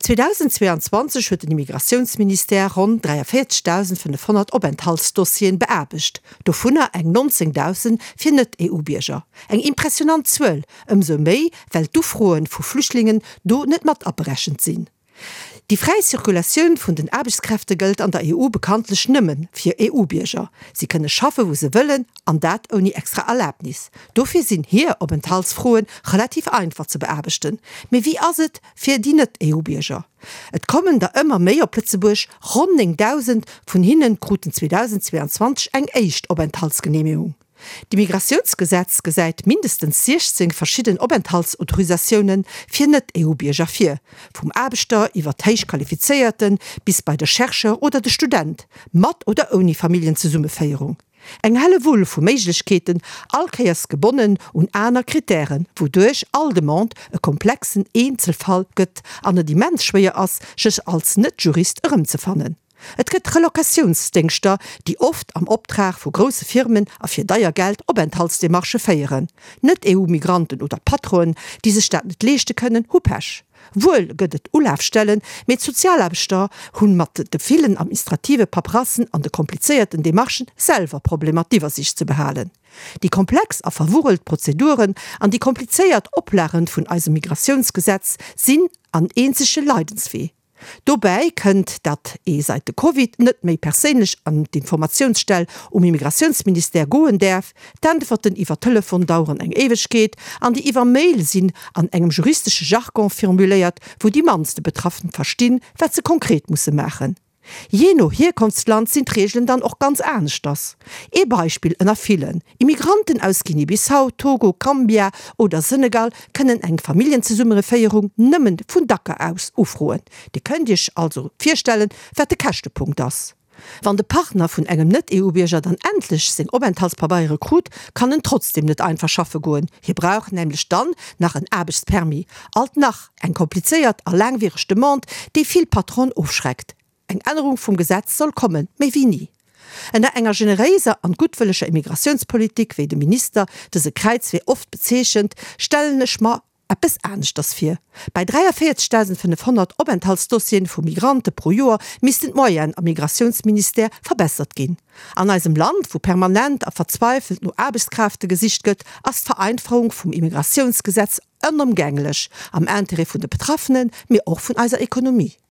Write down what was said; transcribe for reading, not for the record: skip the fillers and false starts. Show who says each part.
Speaker 1: 2022 huet den Immigratiounsministère ronn 43.500 Openthaltsdossieren beaarbecht, dovunner eng 19.000 fir Net-EU-Bierger. Eng impressionant Zuel, ëmsou méi well d'Ufroe vu Flüchtlingen do net mat aberechent sinn. Déi fräi Zirkulatioun vun den Aarbechtskräfte gëllt an der EU bekanntlech nëmme fir EU-Bierger. Si kënne schaffe wou se wëllen, an dat ouni extra Erlabnis. Dofir sinn hir Openthaltsfroe relativ einfach ze beaarbechten. Mee wéi ass et fir déi Net-EU-Bierger? Et kommen der ëmmer méi op Lëtzebuerg, ronn 9.000 vun hinne kruten 2022 eng éischt Openthaltsgeneemegung. D'Immigratiounsgesetz gesäit mindestens 16 verschidden Openthaltsautorisatioune fir Net-EU-Bierger vir, vum Aarbechter iwwer d'Héichqualifizéierte bis bei de Chercheur oder de Student, mat oder ouni Familljenzesummeféierung. Eng Hellewull vu Méiglechkeeten, all Kéiers gebonnen un aner Krittären, wouduerch all Demande e komplexen Eenzelfall gëtt an et immens schwéier ass, sech als Net-Jurist erëmzefannen. Et gëtt Relocatiounsdéngschter, déi oft am Optrag vu grousse Firmen a fir deier Geld Openthaltsdemarchë féieren. Net-EU-Migranten oder Patronen, déi sech dat net leeschte kënnen, hu Pech. Wuel gëtt et Ulafstellen, mee d'Sozialaarbechter hu mat de villen administrative Paperassen an de komplizéierten Demarchen selwer Problemer d'Iwwersiicht ze behalen. Déi komplex a verwurrelt Prozeduren an déi komplizéiert Oplagen vun eisem Migratiounsgesetz sinn an eenzege Leidenswee. Dobäi kënnt, datt ee seit de Covid net méi perséinlech an d'Informatiounsstell um Immigratiounsministère goen däerf. D'Äntwerten iwwer Telefon daueren eng Éiwegkeet an déi iwwer Mail sinn an engem juristesche Jargon formuléiert, wou déi mannste Betraffen verstinn, wat se konkret musse maachen. Jee no Hierkonftsland sinn d'Reegelen dann och ganz aneschters. Ee Beispill ënner villen, Immigranten aus Guinée-Bissau, Togo, Gambia oder Senegal kënnen eng Familljenzesummereféierung nëmmen vun Dakar aus ufroen. Dir kënnt Iech also virstellen, wat de Käschtepunkt ass. Wann de Partner vun engem Net-EU-Bierger dann endlech seng Openthaltspabeiere krut, kann en trotzdem net einfach schaffe goen. Hie brauch nämlech dann nach en Aarbechtspermis. Alt nach eng komplizéiert a laangwiereg Demande, déi vill Patronen ofschreckt. Eng Ännerung vum Gesetz soll kommen, méi wéi ni. Ënner enger generéiser an guttwëlleger Immigratiounspolitik, wéi de Minister dëse Kräizwee oft bezeechent, stellen ech mer eppes aneschters vir. Bei 43.500 Openthaltsdossieren vu Migrante pro Joer missten d'Moyenen am Migratiounsministère verbessert ginn. An eisem Land, wou permanent a verzweifelt no Aarbechtskrafte gesicht gëtt, ass d'Vereinfachung vum Immigratiounsgesetz onëmgänglech, am Intérêt vun de Betraffenen, mee och vun eiser Ekonomie.